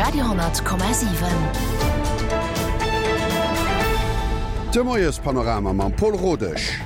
Radio,7. De Moiespanorama mam Pol Rodesch.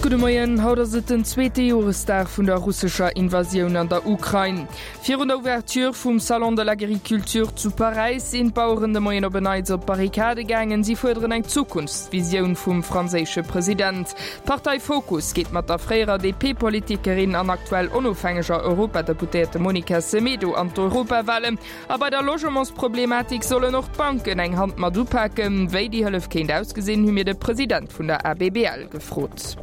Gudde Moien, haut ass et den zweete Joresdag vun der russescher Invasioun an der Ukrain. Virun der Ouverture vum Salon de l'Agriculture zu Paräis sinn d'Baueren de Moien op en Neits op d'Barrikade gaangen. Si fuerderen eng Zukunftsvisioun vum franséische President. D'Partei Fokus geet mat der fréierer DP-Politikerin an aktuell onofhängeger Europadeputéierte Monica Semedo an d'Europawalen. A bei der Logementsproblematik sollen och d'Banken eng Hand mat upaken. Wéi déi Hëllef kéint ausgesinn, hu mir de President vun der ABBL gefrot.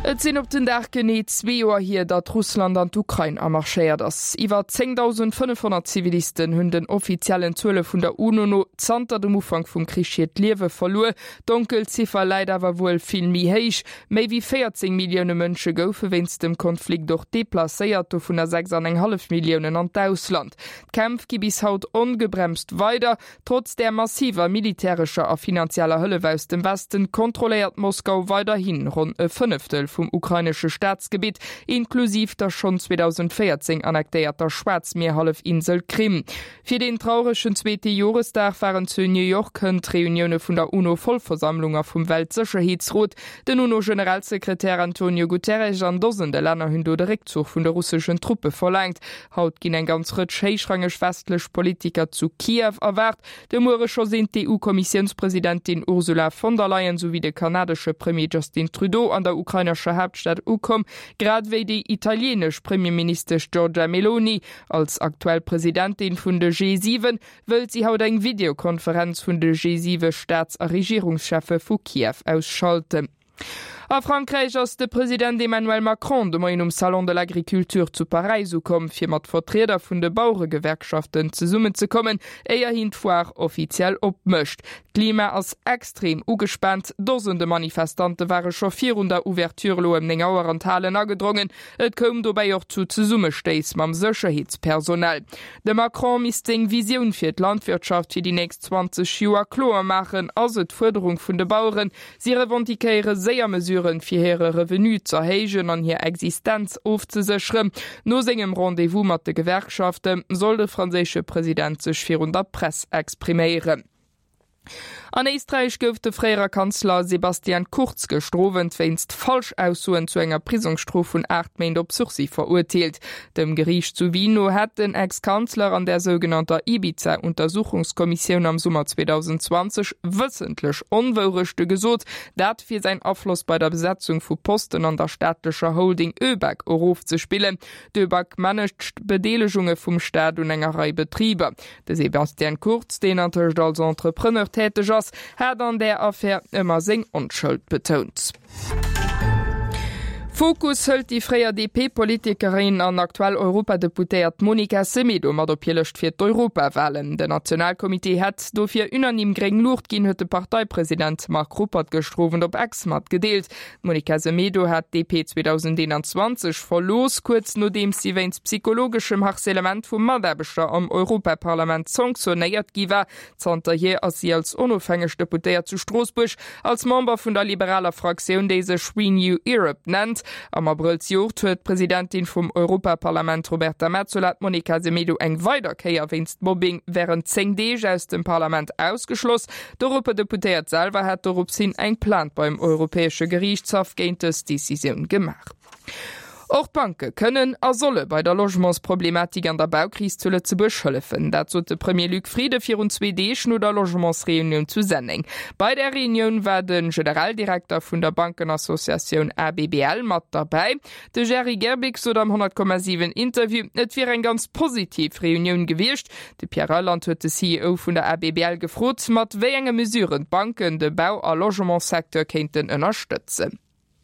Et sinn op den Dag genee zwee Joer hier, datt Russland an d'Ukrain amarschéiert ass. Iwwer 10.500 Zivilisten hunn den offiziellen Zuele vun der UNO no zanter dem Ufank vum Krich hiert Liewe verluer. D'Donkelziffer läit awer wuel vill méi héich. Méi wéi 14 Millioune Mënsche goufe wéinst dem Konflikt och deplacéiert, dovunner 6 an eng hallef Milliounen an d'Ausland. D'Kämpf gi bis haut ongebremst weider. Trotz där massiver militärescher a finanzieller Hëllef aus dem Westen kontrolléiert Moskau weiderhi ronn e Fënneftel vum ukrainesche Staatsgebitt, inklusiv der schonn 2014 annektéierter Schwaarzmierhallefinsel Krim. Fir deen trauregen zweete Joresdag waren zu New York hënt d'Reunioune vun der UNO-Vollversammlung a vum Weltsécherheetsrot. Den UNO-Generalsekretär Antonio Guterres an Dosende Länner hunn do de Réckzuch vun de russeschen Truppe verlaangt. Haut ginn eng ganz Rëtsch héichrangeg westlech Politiker zu Kiew erwaart. De Muere scho sinn d'EU-Kommissiounspresidentin Ursula von der Leyen souwéi de kanadesche Premier Justin Trudeau an der ukrainescher Haaptstad ukomm, grad ewéi déi italieenesch Premierministesch Giorgia Meloni. Als aktuell Presidentin vun de G7 wëllt si haut eng Videokonferenz vun de G7 Staats a Regierungscheffe vu Kiew aus schalten. A Frankräich ass de President Emmanuel Macron de Moien um Salon de l'Agriculture zu Paräis ukomm, fir mat Vertrieder vun de Baueregewerkschaften zesummenzekommen, éier hien d'Foire offiziell opmécht. D'Klima ass extrem ugespaant, Dosende Manifestante ware scho virun der Ouverture elo ëm 9 Auer an d'Halen agedrongen. Et koum dobäi och zu Zesummestéiss mam Sécherheetspersonal. De Macron misst seng Visioun fir d'Landwirtschaft fir déi nächst 20 Joer kloer maachen, ass et d'Fuerderung vun de Baueren. Si revendiquéiere séier Mesuren, fir hire Revenu z'erhéijen an hir Existenz ofzesécheren. No sengem Rendez-vous mat de Gewerkschafte soll de franséische President sech virun der Press expriméieren. An Éisträich gouf de fréierer Kanzler Sebastian Kurz gëschter Owend wéinst Falschaussoen zu enger Prisongsstrof vun 8 Méint op Sursis verurteelt. Dem Geriicht zu Wien no hätt den Ex-Kanzler an der sougenannter Ibiza-Untersuchungskommissioun am Summer 2020 wëssentlech Onwourechte gesot, dat fir säin Afloss bei der Besetzung vu Posten an der staatlecher Holding ÖBAG erofzespillen. D'ÖBAG managt Bedeelegunge vum Staat un enger Rei Betriber. De Sebastian Kurz, deen antëscht als Entrepreneur täteg ass, hat an där Affär ëmmer seng Onschëld betount. Fokus hëlt déi fréier DP-Politikerin an aktuell Europadeputéiert Monica Semedo mat op hir Lëscht fir d'Europawalen. Den Nationalcomité hätt dofir unanime gréng Luucht ginn, huet de Parteipresident Marc Ruppert gëschter Owend op X matgedeelt. D'Monica Semedo hat d'DP 2021 verlooss, kuerz nodeems si wéinst psychologeschem Harcèlement vu Mataarbechter am Europaparlament sanktionéiert gi war. Zanterhier ass si als onofhängeg Deputéiert zu Stroossbuerg als Member vun der liberaler Fraktioun, déi sech Renew Europe nennt. Am Abrëll zejoert huet d'Presidentin vum Europaparlament Roberta Metsola d'Monica Semedo eng weider Kéier wéinst Mobbing wärend 10 Deeg aus dem Parlament ausgeschloss. D'Europadeputéiert selwer hat dorops hin eng Plainte beim Europäesche Geriichtshaff géint dës Decisioun gemaach. Och d'Banke kënnen a solle bei der Logementsproblematik an der Baukris zu Lëtzebuerg hëllefen. Dat sot de Premier Luc Frieden virun zwee Deeg no der Logementsreunioun zu Senneng. Bei där Reunioun war de Generaldirekter vun der Bankenassociatioun ABBL mat derbäi. De Jerry Gerbic sot am 100,7 Interview, et wier eng ganz positiv Reunioun gewiescht. De Pierre Reyland huet de CEO vun der ABBL gefrot, mat wéi enge Mesuren d'Banken de Bau a Logementssecteur kéinten ënnerstëtzen.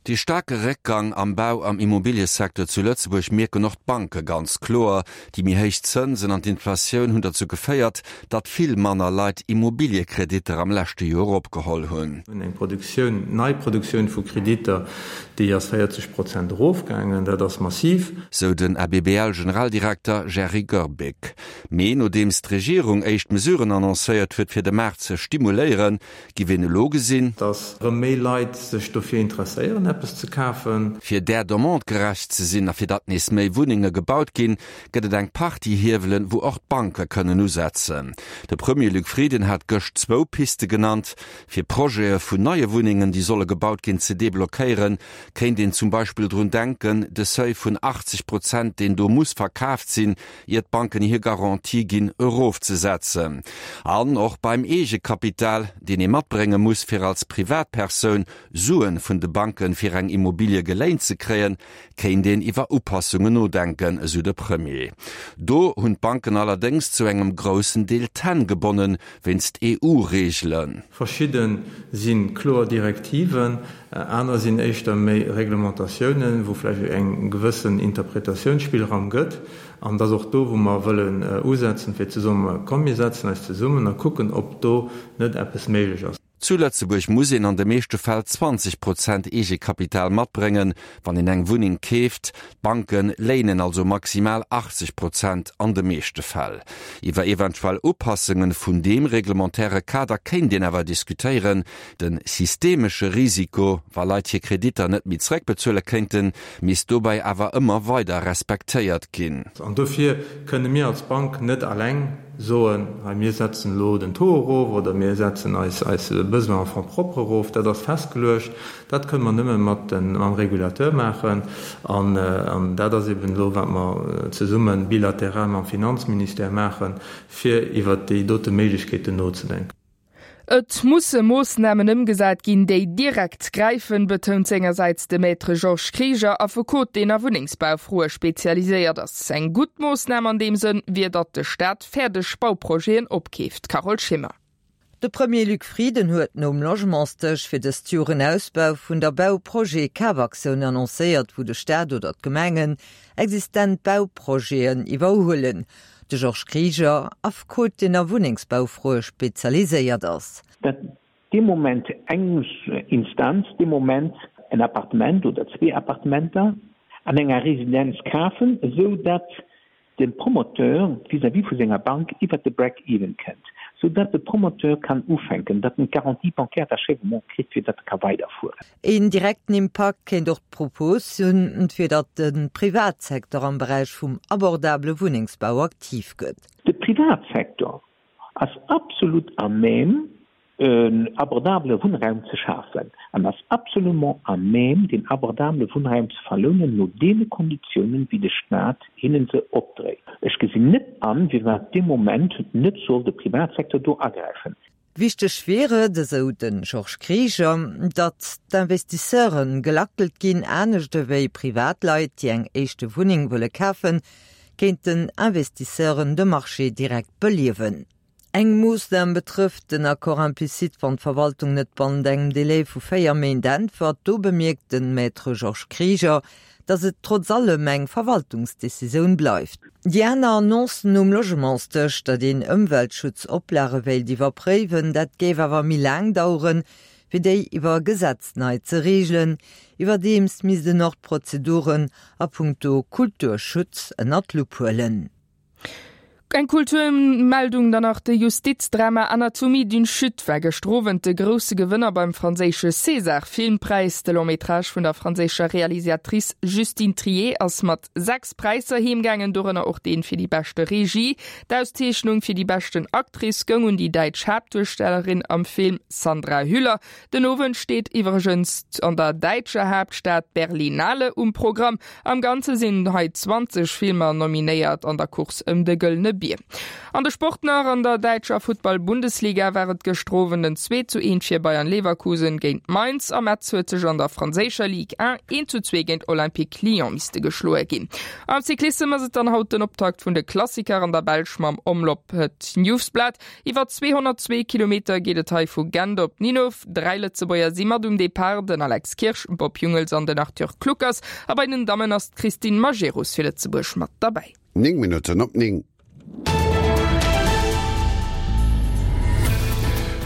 Dee staarke Réckgang am Bau am Immobiliësecteur zu Lëtzebuerg mierken och d'Banke ganz kloer. Déi méi héich Zënsen an d'Inflatioun hunn derzou geféiert, datt vill manner Leit Immobiliekreditter am leschte Joer opgeholl hunn. Mir hunn eng Produktioun, Neiproduktioun vu Kreditter, déi ass 40 Prozent erofgaangen. Dat ass massiv. Sou den ABBL-Generaldirekter Jerry Goerbeck. Mee nodeems d'Regierung éischt Mesuren annoncéiert huet, fir de Maart ze stimuléieren, Giff een elo gesinn. Dass rëm méi Leit sech dofir interesséieren. eppes ze kafen. Fir där Demande gerecht ze sinn a fir datt nees méi Wunnenge gebaut ginn, gëtt et eng Partie Hiewelen, wou och d'Banke kënnen usetzen. De Premier Luc Frieden hat gëscht zwou Piste genannt. Fir Projete vun neie Wunnengen, déi solle gebaut ginn, ze deblockéieren, kéint een zum Beispill drun denken, de Seuil vun 80 Prozent, deen do muss verkaaft sinn, ier d'Banken hir Garantie ginn, erofzesetzen. An och beim Eegekapital, deen ee matbrénge muss, fir als Privatpersoun Suen vun de Banken fir eng Immobilie geléint ze kréien, kéint een iwwer Upassungen nodenken, esou de Premier. Do hunn d'Banken allerdéngs zu engem groussen Deel d'Hänn gebonnen, wéinst EU-Reegelen. Verschidde si kloer Direktiven, aner sinn éischter méi Reglementatiounen, wou vläicht eng gewëssen Interpretatiounsspillraum gëtt. An et ass och do, wou mer wëllen usetzen, fir ze soen, Komm mir setzen eis zesummen a kucken, ob do net eppes méiglech ass. Zu Lëtzebuerg muss een an de meeschte Fäll 20 Prozent Eegekapital matbréngen, wann een eng Wunneng keeft. D'Banke léinen also maximal 80 Prozent an de meeschte Fäll. Iwwer eventuell Upassunge vun deem reglementaire Kader kéint een awer diskutéieren. De systemesche Risiko, wa Leit hir Kreditter net méi zeréckbezuele kéinten, misst dobäi awer ëmmer weider respektéiert ginn. An dofir kënne mir als Bank net alleng soen, hei mir setzen elo den Taux erof oder mir setzen eis eis Besoin en fonds propres erof. Dat ass festgeluecht. Dat kënne mer nëmme mat den, mam Régulateur maachen. An, an dat ass eben elo, wat mer zesumme bilateral mam Finanzministère maachen, fir iwwert déi dote Méiglechkeeten nozedenken. Et musse Moossnamen ëmgesat ginn, déi direkt gräifen, betount sengersäits de Maître Georges Krieger, Affekot, deen a Wunnengsbaufroe spezialiséiert ass. Eng gutt Moossnam an deem Sënn wier, datt de Staat fäerdeg Bauprojeten opkeeft. Carole Schimmer. De Premier Luc Frieden huet nom Logementsdësch fir dëst Joer en Ausbau vun der Bauprojet-Kafaktioun annoncéiert, wou de Staat oder d'Gemengen existent Bauprojeten iwwerhuelen. De Georges Krieger, Affekot, deen a Wunnengsbaufroe spezialiséiert ass. Datt dee Moment eng Instanz dee Moment en Appartement oder zwee Appartementer an enger Residenz kafen, esou datt de Promoteur vis-à-vis vu senger Bank iwwert de Break-even kënnt, esou datt de Promoteur kann ufänken, datt en d'Garantie bancaire d'achèvement kritt, fir datt e ka weiderfueren. Een direkten Impakt kéint och d'Propos hunn, fir datt de Privatsecteur am Beräich vum abordabele Wunnengsbau aktiv gëtt. De Privatsecteur ass absolut à même, en abordabele Wunnraum ze schafen an ass absolument à même, deen abordabele Wunnraum ze verlounen no deene Konditiounen, wéi de Staat hinnen se opdréit. Ech gesinn net an, firwat dee Moment net soll de Privatsecteur do agräifen. Wichteg wier et, esou de Georges Krieger, datt d'Investisseure gelackelt ginn. Anescht ewéi Privatleit, déi eng éischte Wunneng wëlle kafen, kéinten Investisseuren de Marché direkt beliewen. Eng Moossnam betrëfft den Accord implicite, wann d'Verwaltung net bannent engem Delai vu 4 Méint äntwert. Do bemierkt de Maître Georges Krieger, datt et trotz allem eng Verwaltungsdecisioun bleift. Déi aner Annonce nom Logementsdësch, datt een Ëmweltschutzoplage wéilt iwwerpréiwen, dat géif awer méi laang daueren, wéi déi iwwer Gesetz nei ze reegelen. Iwwerdeems misst en och d'Prozeduren a punkto Kulturschutz ënner d'Lupp huelen. Eng Kulturmeldung dann nach, De Justizdrama Anatomie d'une chute war gëschter Owend de grousse Gewënner beim franséische César-Filmpräis. De Long-métrage vun der franséischer Realisatrice Justine Triet ass mat 6 Präisser heemgaangen, dorënner och dee fir déi beschte Regie. D'Auszeechnung fir déi beschten Actrice goung un déi däitsch Haaptduerstellerin am Film Sandra Hüller. Den Owend steet iwwregens an der däitscher Haaptstad d'Berlinale um Programm. Am Ganze sinn hei 20 Filmer nominéiert an der Course ëm de Gëllene Bier. An de Sport nach, An der däitscher Futtball-Bundesliga war et gëschter Owend en 2 zu 1 fir Bayern Leverkusen géint Mainz a Metz huet sech an der franséischer Ligue 1 1 zu 2 géint Olympique Lyon misste geschloe ginn. Am Cyclissem ass et dann haut den Optakt vun de Klassiker an der Belsch mam Omloop Het Nieuwsblad. Iwwer 202 Kilometer geet et hei vu Gent op Ninove. Dräi Lëtzebuerger si mat um Depart, den Alex Kirsch, Bob Jungels an den Arthur Kluckers. A bei den Dammen ass d'Christine Majerus fir Lëtzebuerg mat derbäi. 9 Minutten op 9.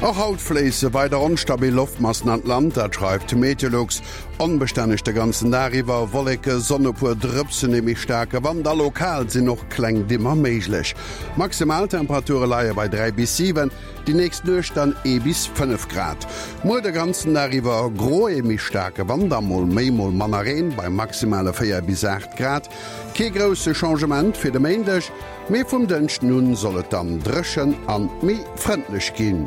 Och haut fléisse weider onstabil Loftmassen an d'Land, dat schreift Meteolux. Onbestänneg de ganzen Dag iwwer, Wolleke, Sonn, e puer Drëpsen, ee méi staarke Wand a lokal sinn och kleng Dimmer méiglech. Maximaltemperature leie bei 3 bis 7, déi nächst Nuecht dann ee bis 5 Grad. Muer de ganzen Dag iwwer gro, ee méi staarke Wand a mol méi, mol manner Reen bei maximale 4 bis 8 Grad. Kee grousse Changement fir de Méindeg, mee vum Dënschden un soll et dann dréchen an méi frëndlech ginn.